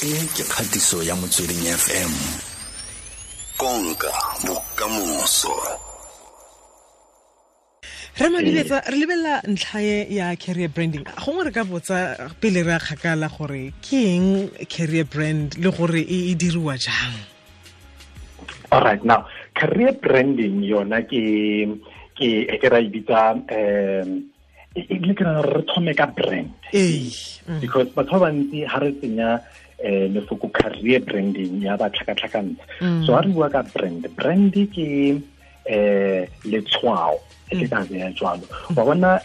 E ke kgatiso ya Motsweding FM. Konka bokamoso. Re Madiletsa, re lebelela ntlha e ya career branding. Gongwe re ka botsa pele re a kgakala gore ke eng career brand le gore e diriwa jang? All right, now career branding yona ke ra e bitsa, e ke re thome ka brand. Because batho ba bantsi ha re tsenya lefoko career branding ya ba tlhakatlhakantsha. So ha re bua ka brand, brand ke letshwao, e ke ka beya jwalo. Wa bona,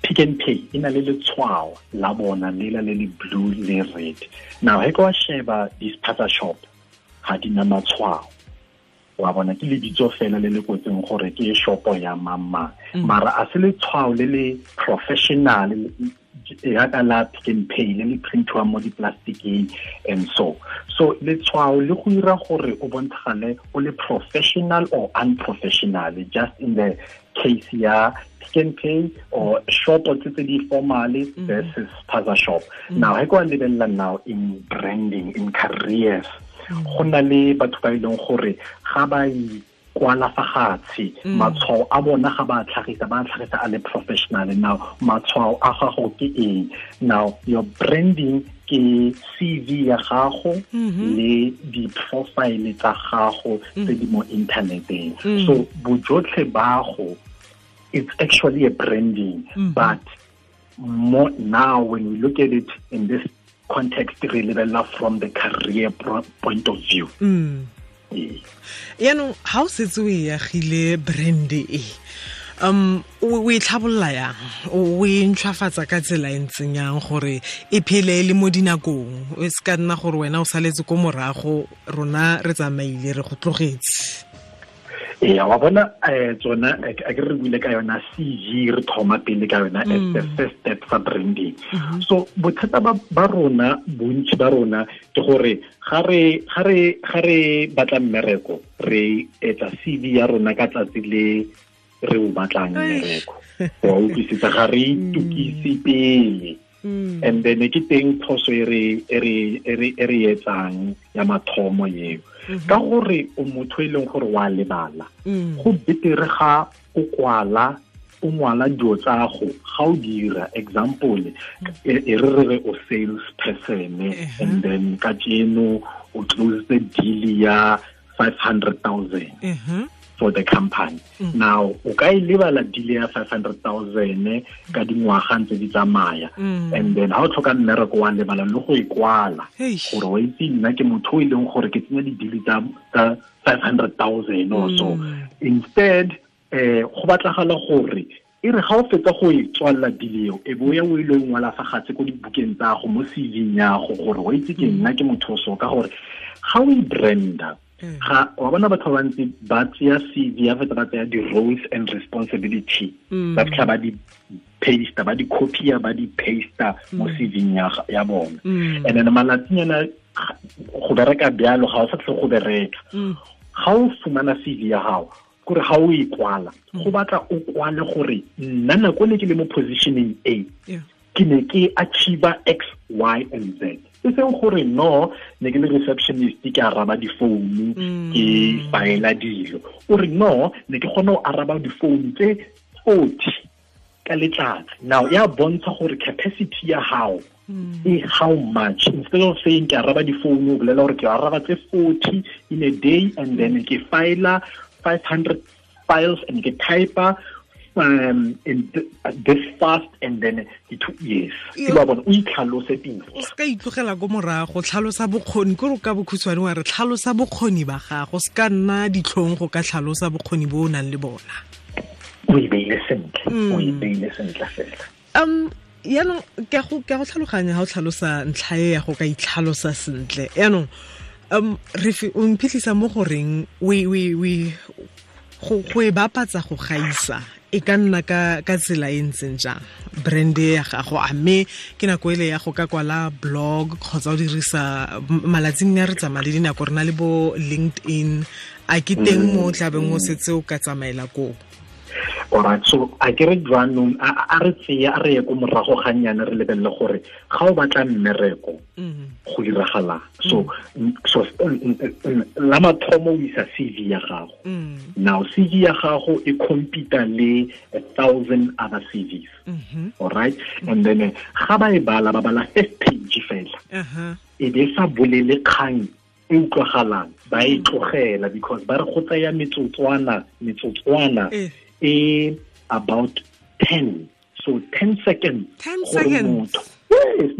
Pick n Pay e na le letshwao la bona lela le le blue le red. Now he ka wa sheba di-spaza shop ga di na matshwao. Wa bona ke lebitso fela le le kwetseng gore ke shopo ya mang. Mara a se letshwao le le professional yaka la Pick n Pay le le printiwang mo di-plasticeng and so. So letshwao le go dira gore o bontshagale o le professional or unprofessional, just in the case ya Pick n Pay or shop tse tse di formal versus spaza shop. Now he kwa lebelela now in branding, in careers, go na le batho ba e leng gore ga ba kwala fa gatshe, matshwao a bona ga ba tlhagisa, ba tlhagisa a le professional. Now matshwao a gago ke eng? Now your branding ke CV ya gago le di-profile tsa gago tse di mo inthaneteng. So bojotlhe ba go, it's actually a branding, but more now when we look at it in this context, re lebelela from the career point of view. Yaanong ha o setse o e agile brand e, o e tlhabolla yang, o e ntšhwafatsa ka tsela e ntseng yang gore e phele e le mo dinakong, e se ka nna gore wena o saletse ko morago, rona re tsamaile re go tlogetse? Ee, wa bona, tsona a ke re buile ka yona CV, re thoma pele ka yona as the first step sa branding. So bothata ba rona, bontsi ba rona ke gore ga re batla mmereko, re etsa CV ya rona ka tsatsi le re o batlang mmereko. Wa utlwisisa, ga re itukise pele. And then ke teng phoso e re etsang ya mathomo eo. Ka gore o motho e leng gore wa lebala, go betere ga o kwala, o ngwala dilo tsa go, ga o dira example, e re re o sales person, and then ka tseno o close the deal ya 500,000 for the company. Now o ka e lebala deal ya 500,000 ka dingwaga ntse di tsamaya, and then ha o tlhoka mmereko wa lebala le go e kwala gore wa itse nna ke motho o e leng gore ke tsenya di-deal tsa 500,000 or so. Instead, go batlagala gore e re ga o fetsa go e tswalla deal eo, e bo ya o ile o ngwala fa gatse ko dibukeng tsa go mo CV ya go gore wa itse ke nna ke motho o so, ka gore ga o e branda, ga wa bona batho ba bantsi ba tseya CV ya fetsa ba tseya di-roles and responsibility, ba fitlha ba di paste, ba di copy-a, ba di paste mo CV ya bona. And then malatsinyana go bereka bjalo ga o sa tle go bereka. Ga o fumana CV ya gago, kore ga o e kwala, go batla o kwale gore nna nako ne ke le mo positioning A, ke ne ke achieve X, Y and Z. E seng gore no, ne ke le receptionist, ke araba difounu, ke faela dilo. O re no, ne ke kgona go araba difounu tse 40 ka letsatsi. Now ya bontsha gore capacity ya hao e how much. Instead of saying ke araba difounu, o bolela gore ke araba tse 40 in a day, and then ke faela 500 files and ke type-a in this fast, and then the 2 years. Ke ba bona o itlhalose pele. O ska itlogela go morago, tlhalosa bokgoni, ke re ka bokhutshwane wa re tlhalosa bokgoni ba gago, se ka nna ditlhong go ka tlhalosa bokgoni bo o nang le bona. O e beile sentle, o e beile sentle fela. Yaanong ke go tlhaloganya ha o tlhalosa ntlha e ya go ka itlhalosa sentle. Yaanong re o mphitlhisa mo goreng go e bapatsa go gaisa e ka nna ka tsela e ntseng jang brand ya gago, a mme ke nako ele ya go ka kwala blog kgotsa o dirisa malatsing a re tsamaya le dinako, re na le bo LinkedIn, a ke teng mo o tlabeng o setse o ka tsamaela koo? Alright, so a ke re jwanong a re tseya a re ye ko morago ga nyana re lebelele gore ga o batla mmereko go diragala. So la mathomo o isa CV ya gago. Now CV ya gago e compete le 1,000 other CVs. Alright, and then ga ba e bala ba bala first page fela. E be sa bolele kgang e utlwagalang, ba e tlogela because ba re go tsaya metsotswana e about 10, so 10 seconds. 10 seconds. Yes,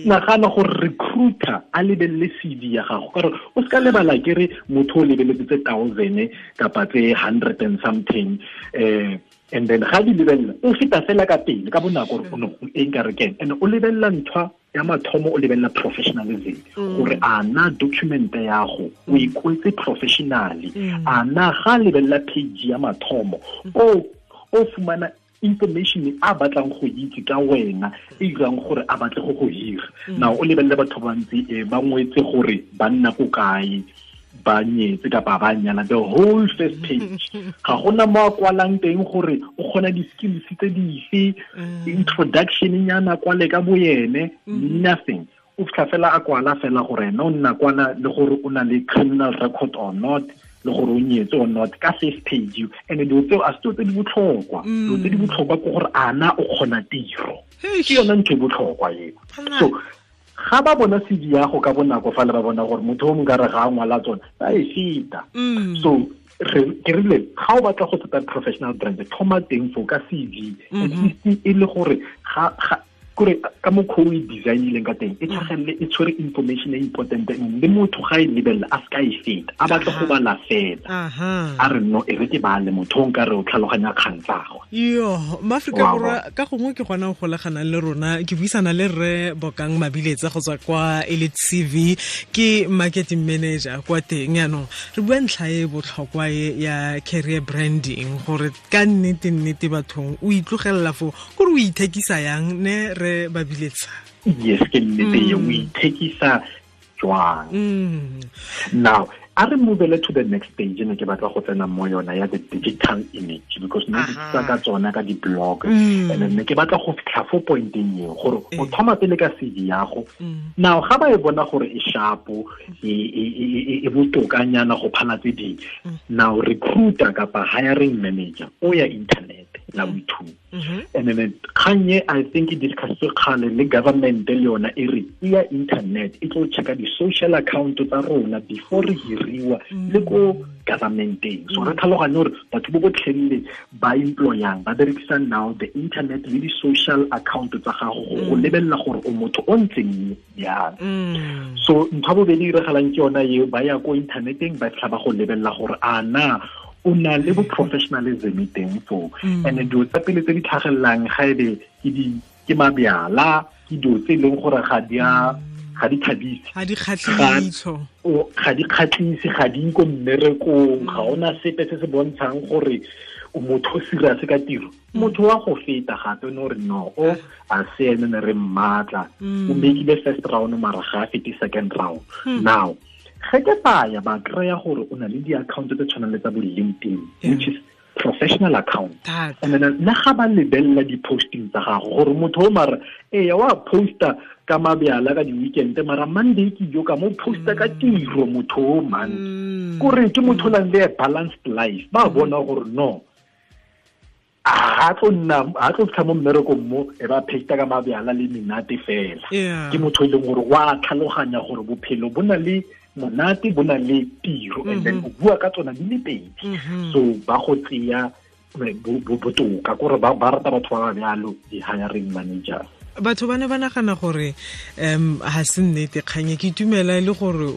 nagana gore recruiter a lebelele CV ya gago, ka gore o se ka lebala ke re motho o lebeletse tse 1,000 kapa tse 100 and something, and then ga di lebelela o feta fela ka pele ka bonako gore o e nka re keng, and o lebelela nthwa ya mathomo, o lebelela professionalism gore a na document ya go o ikwetse professionally, a na ga lebelela page ya mathomo o fumana information a batlang go itse ka wena e irang gore a batle go go hira. Now o lebelele batho ba ntse ba ngwetse gore ba nna ko kae, ba nyetse kapa ba nyala, the whole first page ga gona mo a kwalang teng gore o kgona di-skills tse dife, introduction nyana kwale ka boyene, nothing. O fitlha fela a kwala fela gore ena o nna kwana le gore o na le criminal record or not, le gore o nyetse or not, ka first page. And dilo tseo a se tse di botlhokwa, dilo tse di botlhokwa ke gore ana o kgona tiro, ke yona ntho e botlhokwa eo. So ga ba bona CV ya go ka bonako fa le ba bona gore motho o mongwe re ga a ngwala tsona ba e feta. So ke rile ga o batla go tseta professional brand, thoma teng fo ka CV, at least e le gore ga kore ka mokgwa o e designileng ka teng e tlhagelele e tshwere information e important, le motho ga e lebelela a se ka e feta, a batla go bala fela a re no e re ke bale motho o nka re o tlhaloganya kgang tsa gagwe. Yo Maaforika Borwa ka gongwe ke gona go golaganang le rona, ke buisana le rre Bokang Mabiletsa go tswa kwa Elite CV, ke marketing manager kwa teng. Yaanong re bua ntlha e botlhokwa e ya career branding, gore ka nnete nnete bathong o itlogelela fo gore o ithekisa yang ne re Mabiletsa? Yes, ke nnete e, o ithekisa jwang. Now a re move to the next stage, ne ke batla go tsena mo yona ya the digital image, because ne ke tsa ka tsona ka di-blog, and then ne ke batla go fitlha fo pointeng eo gore o thoma pele ka CV ya go. Now ga ba e bona gore e sharpo, e botokanyana go phala tse dingwe, now recruiter kapa hiring manager o ya internet la boithuti. And then kganye I think e discusswe kgale le government le yona e re e ya internet e tlo checka di-social account tsa rona before re hiriwa le ko governmenteng. So re tlhaloganye gore batho bo botlhelele ba employang ba berekisa now the internet le di-social account tsa gago go lebelela gore o motho o ntseng jang. So ntho ya bobedi e diragalang ke yona eo, ba ya ko inthaneteng ba fitlha ba go lebelela gore a na o na le bo professionalism teng foo. And dilo tsa pele tse di tlhagelelang ga ebe ke mabjala, ke dilo tse e leng gore ga di thabise, ga di kgatlhise, ga di ko mmerekong, ga ona sepe se se bontshang gore o motho o serious ka tiro. Motho wa go feta gape no re no o a se ene ne re mmatla, o mekile first round mara ga a fete second round. Now ge ke baya ba kry-a gore o na le di-account tse tshwanang le tsa bo LinkedIn, which is professional account. And then le ga ba lebelela di-posting tsa gago gore motho o mara eya wa posta ka mabjala ka di-weekend, mara Monday ke jo ka mo posta ka tiro motho o man, kore ke motho o nang le a balanced life. Ba bona gore no a tlo fitlha mo mmerekong mo e ba pheta ka mabjala le menate fela. Ke motho e leng gore wa tlhaloganya gore bophelo bo na le monate, bo na le tiro, and then o bua ka tsona di le pedi. So ba go tseya botoka kore ba rata batho ba ba bjalo di-hiring managers. Batho ba ne ba nagana gore ga se nnete kganye, ke itumela e le gore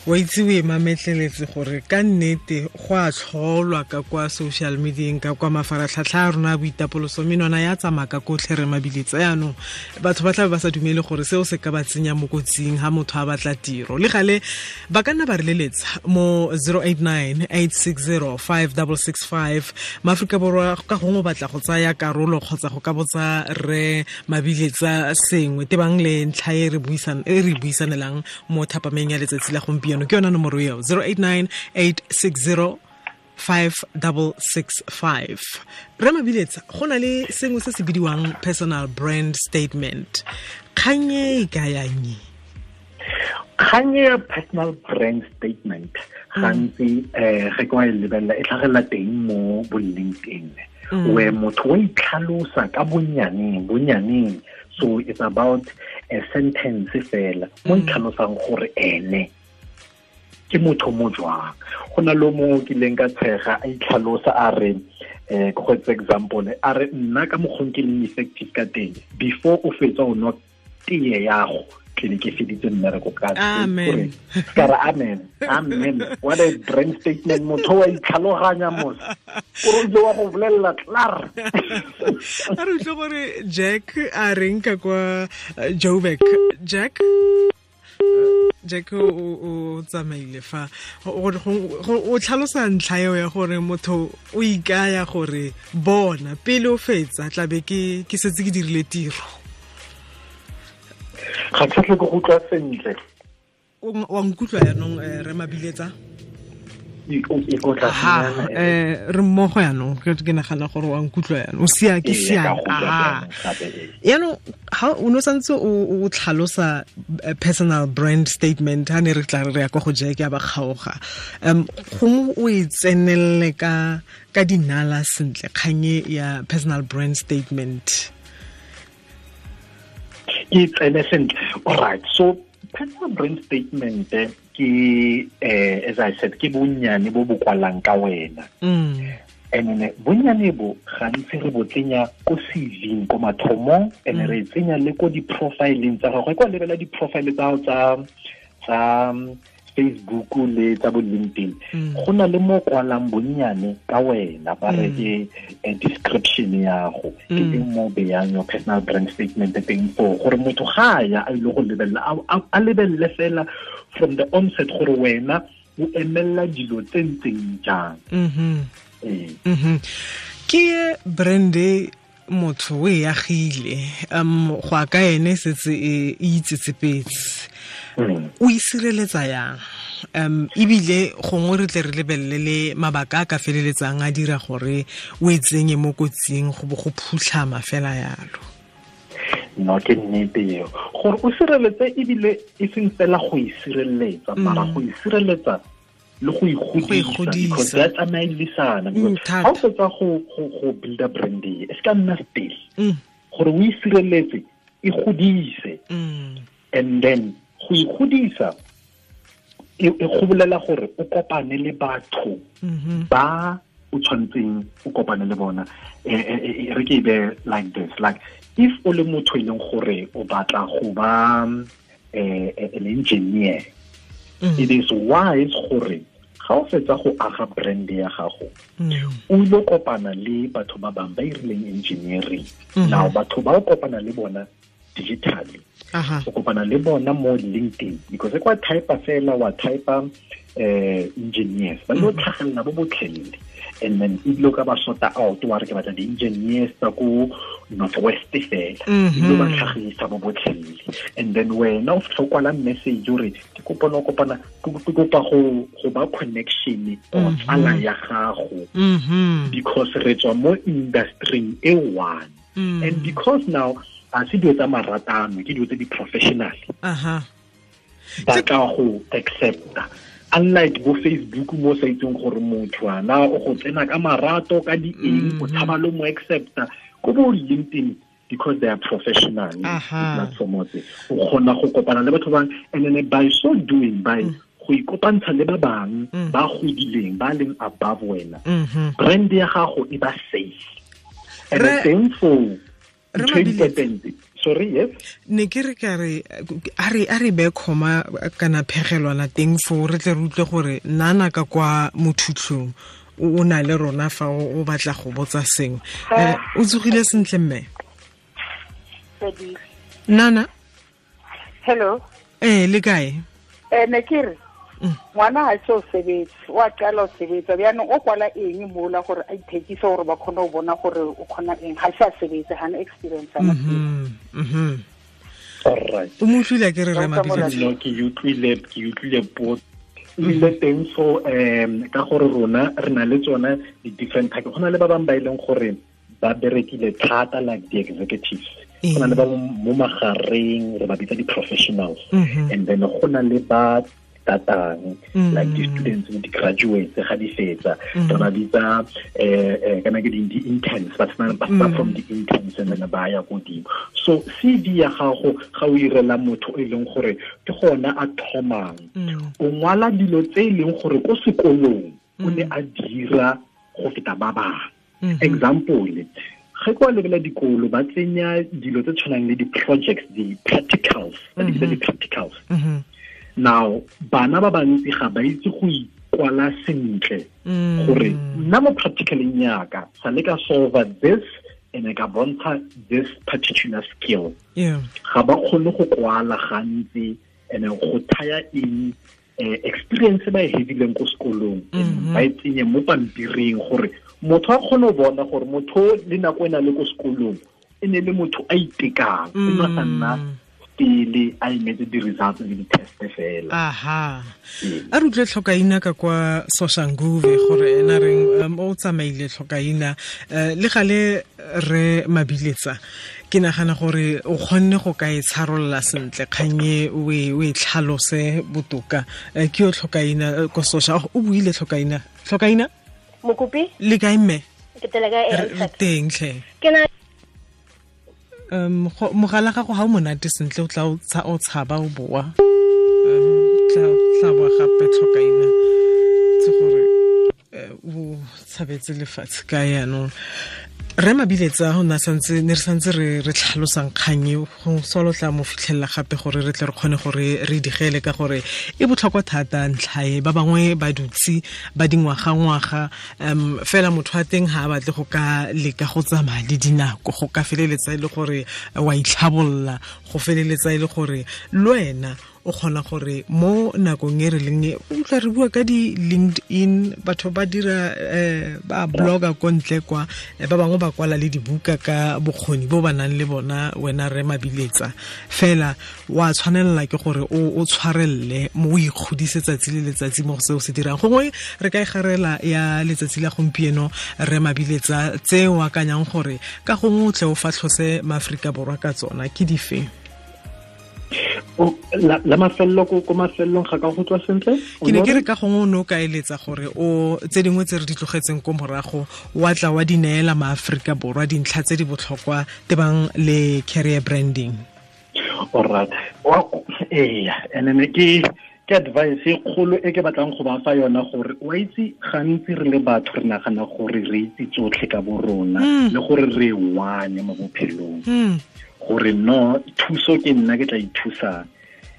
wa itse o e mametleletse gore ka nnete go a tlholwa ka kwa social medieng, ka kwa mafaratlhatlha a rona a boitapoloso, menwana ya tsamaya ka kotlhe re Mabiletsa. Yaanong batho ba tlabe ba sa dumele gore seo se ka ba tsenya mo kotsing ha motho a batla tiro. Le gale ba ka nna ba re leletsa mo 089 860 5665. Maaforika Borwa ka gongwe o batla go tsaya karolo kgotsa go ka botsa re Mabiletsa sengwe tebang le ntlha e re buisanelang mo thapameng ya letsatsi la gompieno, ke yona nomoro eo 089 860 5665. Re Mabiletsa, go na le sengwe se se bidiwang personal brand statement. Kgang e ka yang? Kgang ya personal brand statement gantsi ge ke wa e lebelela e tlhagelela teng mo bo LinkedIn, where motho wa itlhalosa ka bonyaneng. So it's about a sentence fela mo itlhalosang gore ene ke motho mo jwang. Go na le mo ke leng ka tshega a itlhalosa a re, go etsa example, a re nna ka mokgong ke leng effective ka teng, before o fetsa o nwa tee yago tlele ke feditse mmereko ka amen. Ka amen, amen. What a brand statement. Motho wa itlhaloganya mos o re wa go bolelela klaar. A re utlwe gore Jack a reng ka kwa Joburg. Jack o tsamaile fa o tlhalosa ntlha eo ya gore motho o ikaya gore bona pele o fetsa tlabe ke setse ke dirile tiro. Ga ke tle go utlwa sentle. Wa nkutlwa yanong, re Mabiletsa? Re mmogo yanong, ke nagana gore wa nkutlwa yanong. O sia ke sia. Yanong ha o no santse o tlhalosa personal brand statement ha ne re tla re ya kwa go Jack ya ba kgaoga. Gongwe o e tsenelle ka dinala sentle kgang ya personal brand statement. Ke tsene sentle. All right, so personal brand statement ke as I said, ke bonnyane bo bo kwalang ka wena. And then bonnyane bo gantsi re bo tsenya ko CV-ing ko mathomong, and re tsenya le ko di-profileng tsa gago. Kwa lebela di-profile tsa gago tsa Facebook le tsa bo LinkedIn, go na le mo kwalang bonnyane ka wena, ba re ke description ya go, ke teng mo beyang your personal brand statement teng foo, gore motho ga ya a ile go lebelela, a lebelele fela from the onset gore wena o emella dilo tse ntseng jang. Ke brand motho o e agile, go a ka ene setse e itsetsepetse. O e sireletsa yang? Ebile gongwe re tle re lebelele le mabaka a ka feleletsang a dira gore o e tsenye mo kotsing go bo go phutlhama fela yalo. No, ke nnete eo. Gore o sireletse ebile e seng fela go e sireletsa, mara go e sireletsa le go ikgodisa, because ya tsamaelisana. Ga o fetsa go builda brand e se ka nna still. Gore o e sireletse, e godise. And then go ikgodisa e go bolela gore o kopane le batho ba o tshwantseng o kopane le bona. Re ke be like this, like if o le motho e leng gore o batla go ba an engineer, it is wise gore ga o fetsa go aga brand ya gago, o ile kopana le batho ba bang ba irileng engineering. Now batho ba o kopana le bona digitally, o kopana le bona mo LinkedIn, because kwa type fela wa type engineers ba lo tlhagelela bo botlhelele, and then e lo ka ba sort out wa re ke batla di-engineers tsa ko Northwest fela, e lo ba tlhagisa bo botlhelele. And then wena o fitlha o kwala message o re ke kopa no kopana, ke kopa go ba connection o tsala ya gago, because re tswa mo industry e one. And because now a se dilo tsa maratano, ke dilo tse di-professional. Ba ka go accepta, unlike bo Facebook mo sa itseng gore motho ana o go tsena ka marato ka di eng, o tshaba le mo accepta. Ko bo LinkedIn, because they are professional platform tse, o kgona go kopana le batho bang, and then by so doing, by go ikopantsha le ba bang ba godileng, ba leng above wena, brand ya gago e ba safe. And the same for Sorry, yes. Ne ke re ka re a re be khoma kana phegelwana teng fo re tle re utlwe gore nana ka kwa mothutlong o na le rona fa o batla go botsa sengwe. O tsogile sentle mme? Nana? Hello. Le kae? Ne ke re ngwana ha se o sebetse, wa qala o sebetsa bjanong o kwala eng mola gore a ithekise gore ba kgone go bona gore o kgona eng, ga se a sebetse, ga na experience. All right. O mo utlwile ke re re Mabiletsa? No, ke utlwile potso. Ebile teng so ka gore rona re na le tsona di-different type. Go na le ba bangwe ba e leng gore ba berekile thata like the executives. Go na le ba mo magareng re ba bitsa di-professionals. And then go na le ba tatang like the students le di-graduates ga di fetsa re ba bitsa kana ke di-interns ba start from the interns and then ba ya godimo. So CV ya gago ga o irela motho e leng gore ke gona a thomang, o ngwala dilo tse e leng gore ko sekolong o ne a dira go feta ba bangwe. Example, ge kwa lebela dikolo ba tsenya dilo tse tshwanang le di-projects, di-practicals, ba di bitsa di-practicals. Now, bana ba bantsi ga ba itse go ikwala sentle gore nna mo practicaleng yaka sa le ka solve this and ka bontsha this particular skill. Ga ba kgone go kwala gantsi and go thaya in experience ba e hedileng ko sekolong ba e tsenye mo pampiring gore motho a kgone go bona gore motho le nako e na le ko sekolong e ne le motho a itekang, e ne sa nna pele a emetse di-results le di-test fela. Aha. A re utlwe Tlhokaina ka kwa Soshanguve gore ena reng o tsamaile Tlhokaina le gale re Mabiletsa. Ke nagana gore o kgonne go ka e tsharolola sentle kgang e o e tlhalose botoka. Ke yo Tlhokaina ko Sosha, o buile Tlhokaina. Tlhokaina? Mokopi? Le kae mme? Ke tele kae? Re teng tlhe. Ke na mogala gago ga o monate sentle o tla o tshaba o boa. Tla boa gape Tlhokaina tse gore o tshabetse lefatshe ka yaanong. Re Mabiletsa go na santse ne re santse re tlhalosang kgang e go solo tla mo fitlhella gape gore re tle re kgone gore re digele ka gore e botlhokwa thata ntlha e. Ba bangwe ba dutse ba dingwaga-ngwaga fela motho wa teng ga a batle go ka leka go tsamaya le dinako, go ka feleletsa e le gore wa itlhabolla, go feleletsa e le gore le wena o kgona gore mo nakong e re leng e o tla re bua ka di-LinkedIn, batho ba dira ba blogger ko ntle kwa, ba bangwe ba kwala le dibuka ka bokgoni bo ba nang le bona. Wena re Mabiletsa fela wa tshwanelela ke gore o tshwarelle mo o ikgodise tsatsi le letsatsi mo go seo se dirang. Gongwe re ka e garela ya letsatsi la gompieno re Mabiletsa tse o akanyang gore ka gongwe o tle o fatlhose maAforika Borwa ka tsona ke dife? La mafello ko mafellong ga ka go tswa sentle? Ke ne ke re ka gongwe o ne o ka eletsa gore o tse dingwe tse re di tlogetseng ko morago wa tla wa di neela maAforika Borwa dintlha tse di botlhokwa tebang le career branding. Alright. And then ke advice e kgolo e ke batlang go ba fa yona gore wa itse gantsi re le batho re nagana gore re itse tsotlhe ka bo rona le gore re wane mo bophelong. Gore no thuso ke nna ke tla ithusang,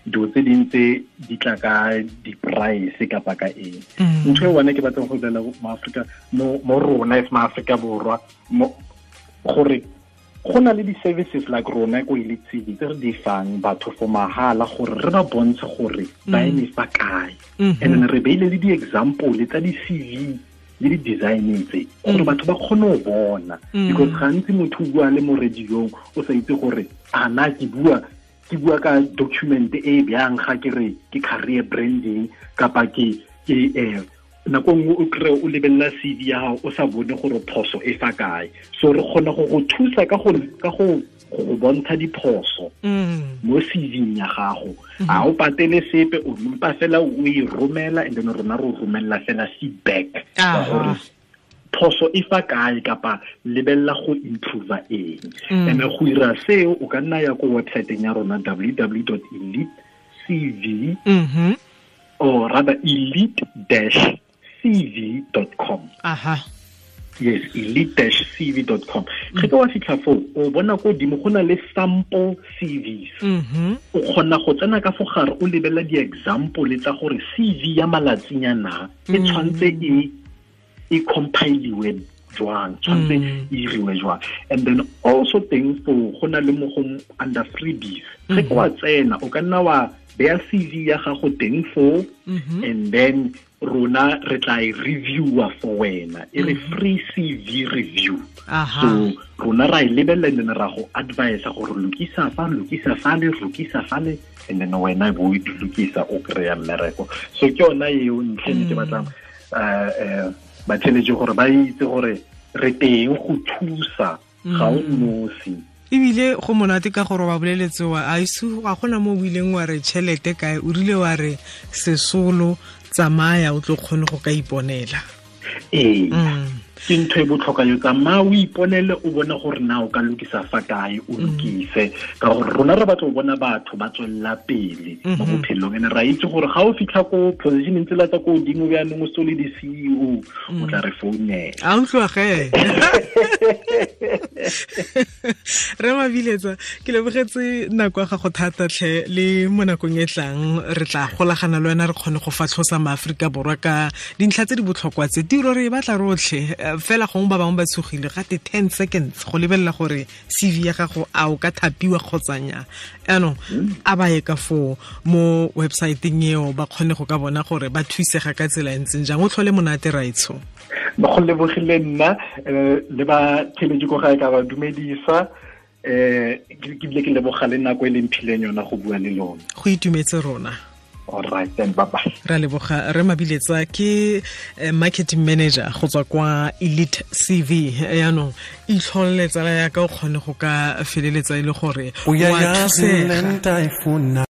dilo tse dintse di tla ka di-price kapa ka eng. Ntho e one ke batlang go bolela mo Afrika mo rona as maAforika Borwa gore go na le di-services like rona ko Elite CV tse re di fang batho for mahala gore re ba bontshe gore ba eme fa kae. And then re beile le di-example tsa di-CV le di-design tse gore batho ba kgone go bona. Because gantsi motho o bua le mo radiong o sa itse gore a na ke bua ka document e bjang ga ke re ke career branding kapa ke nako nngwe o kry o lebelela CV ya gago o sa bone gore phoso e fa kae. So re kgona go go thusa ka go bontsha diphoso mo CV-ing ya gago. A o patele sepe, o mpa fela o e romela and then rona re o romela fela feedback gore phoso e fa kae kapa lebelela go improve eng. And go ira seo o ka nna ya ko website-eng ya rona www.elitecv or rather elite-cv.com. Aha. Yes, elite-cv.com. Ge ka wa fitlha foo, o bona ko godimo go na le sample CVs. O kgona go tsena ka fo gare o lebelela di-example tsa gore CV ya malatsinyana e tshwanetse e compiliwe jwang, tshwanetse e iriwe jwang. And then also teng foo go na le mo go under freebies, ge ke wa tsena o ka nna wa beya CV ya gago teng foo, and then rona re tla e reviewa for wena, e re free CV review. So rona ra e lebelela and then ra go advise gore lokisa fa, lokisa fale, lokisa fale, and then wena bo e lokisa o kry-a mmereko. So ke yona eo ntlha e ke batlang batheletši gore ba itse gore re teng go thusa, ga o nosi. Ebile go monate ka gore wa boleletse wa a ise ga gona mo o ileng wa re tšhelete kae, o rile wa re sesolo tsamaya o tlo kgone go ka iponela. Ee, ke ntho e botlhokwa yo, tsamaya o iponele, o bone gore na o ka lokisa fa kae, o lokise, ka gore rona re batla go bona batho ba tswelela pele mo bophelong. And ra itse gore ga o fitlha ko positioneng tsela tsa ko godimo bjaanong o se le di-CEO, o tla re founela. A utlwa ge. Re Mabiletsa, ke lebogetse nako ya gago thata tlhe, le mo nakong e tlang re tla golagana le wena re kgone go fatlhosa maAforika Borwa ka dintlha tse di botlhokwa tse. Tiro re e batla rotlhe, fela gongwe ba bangwe ba tshogile gate 10 seconds go lebelela gore CV ya gago a o ka thapiwa kgotsa nnyaa. Jaanong a ba ye ka foo mo websiteng eo ba kgone go ka bona gore ba thusega ka tsela e ntseng jang. O tlhole monate raitsho. Go lebogile nna, le ba theletše ko gae ka ba dumedisa, ke bile ke leboga le nako e leng phileng yona go bua le lona. Go itumetse rona. All right then, bye bye. Ra leboga re Mabiletsa, ke marketing manager go tswa kwa Elite CV. Yaanong itlholele tsala ya ka o kgone go ka feleletsa e le gore wa thusega.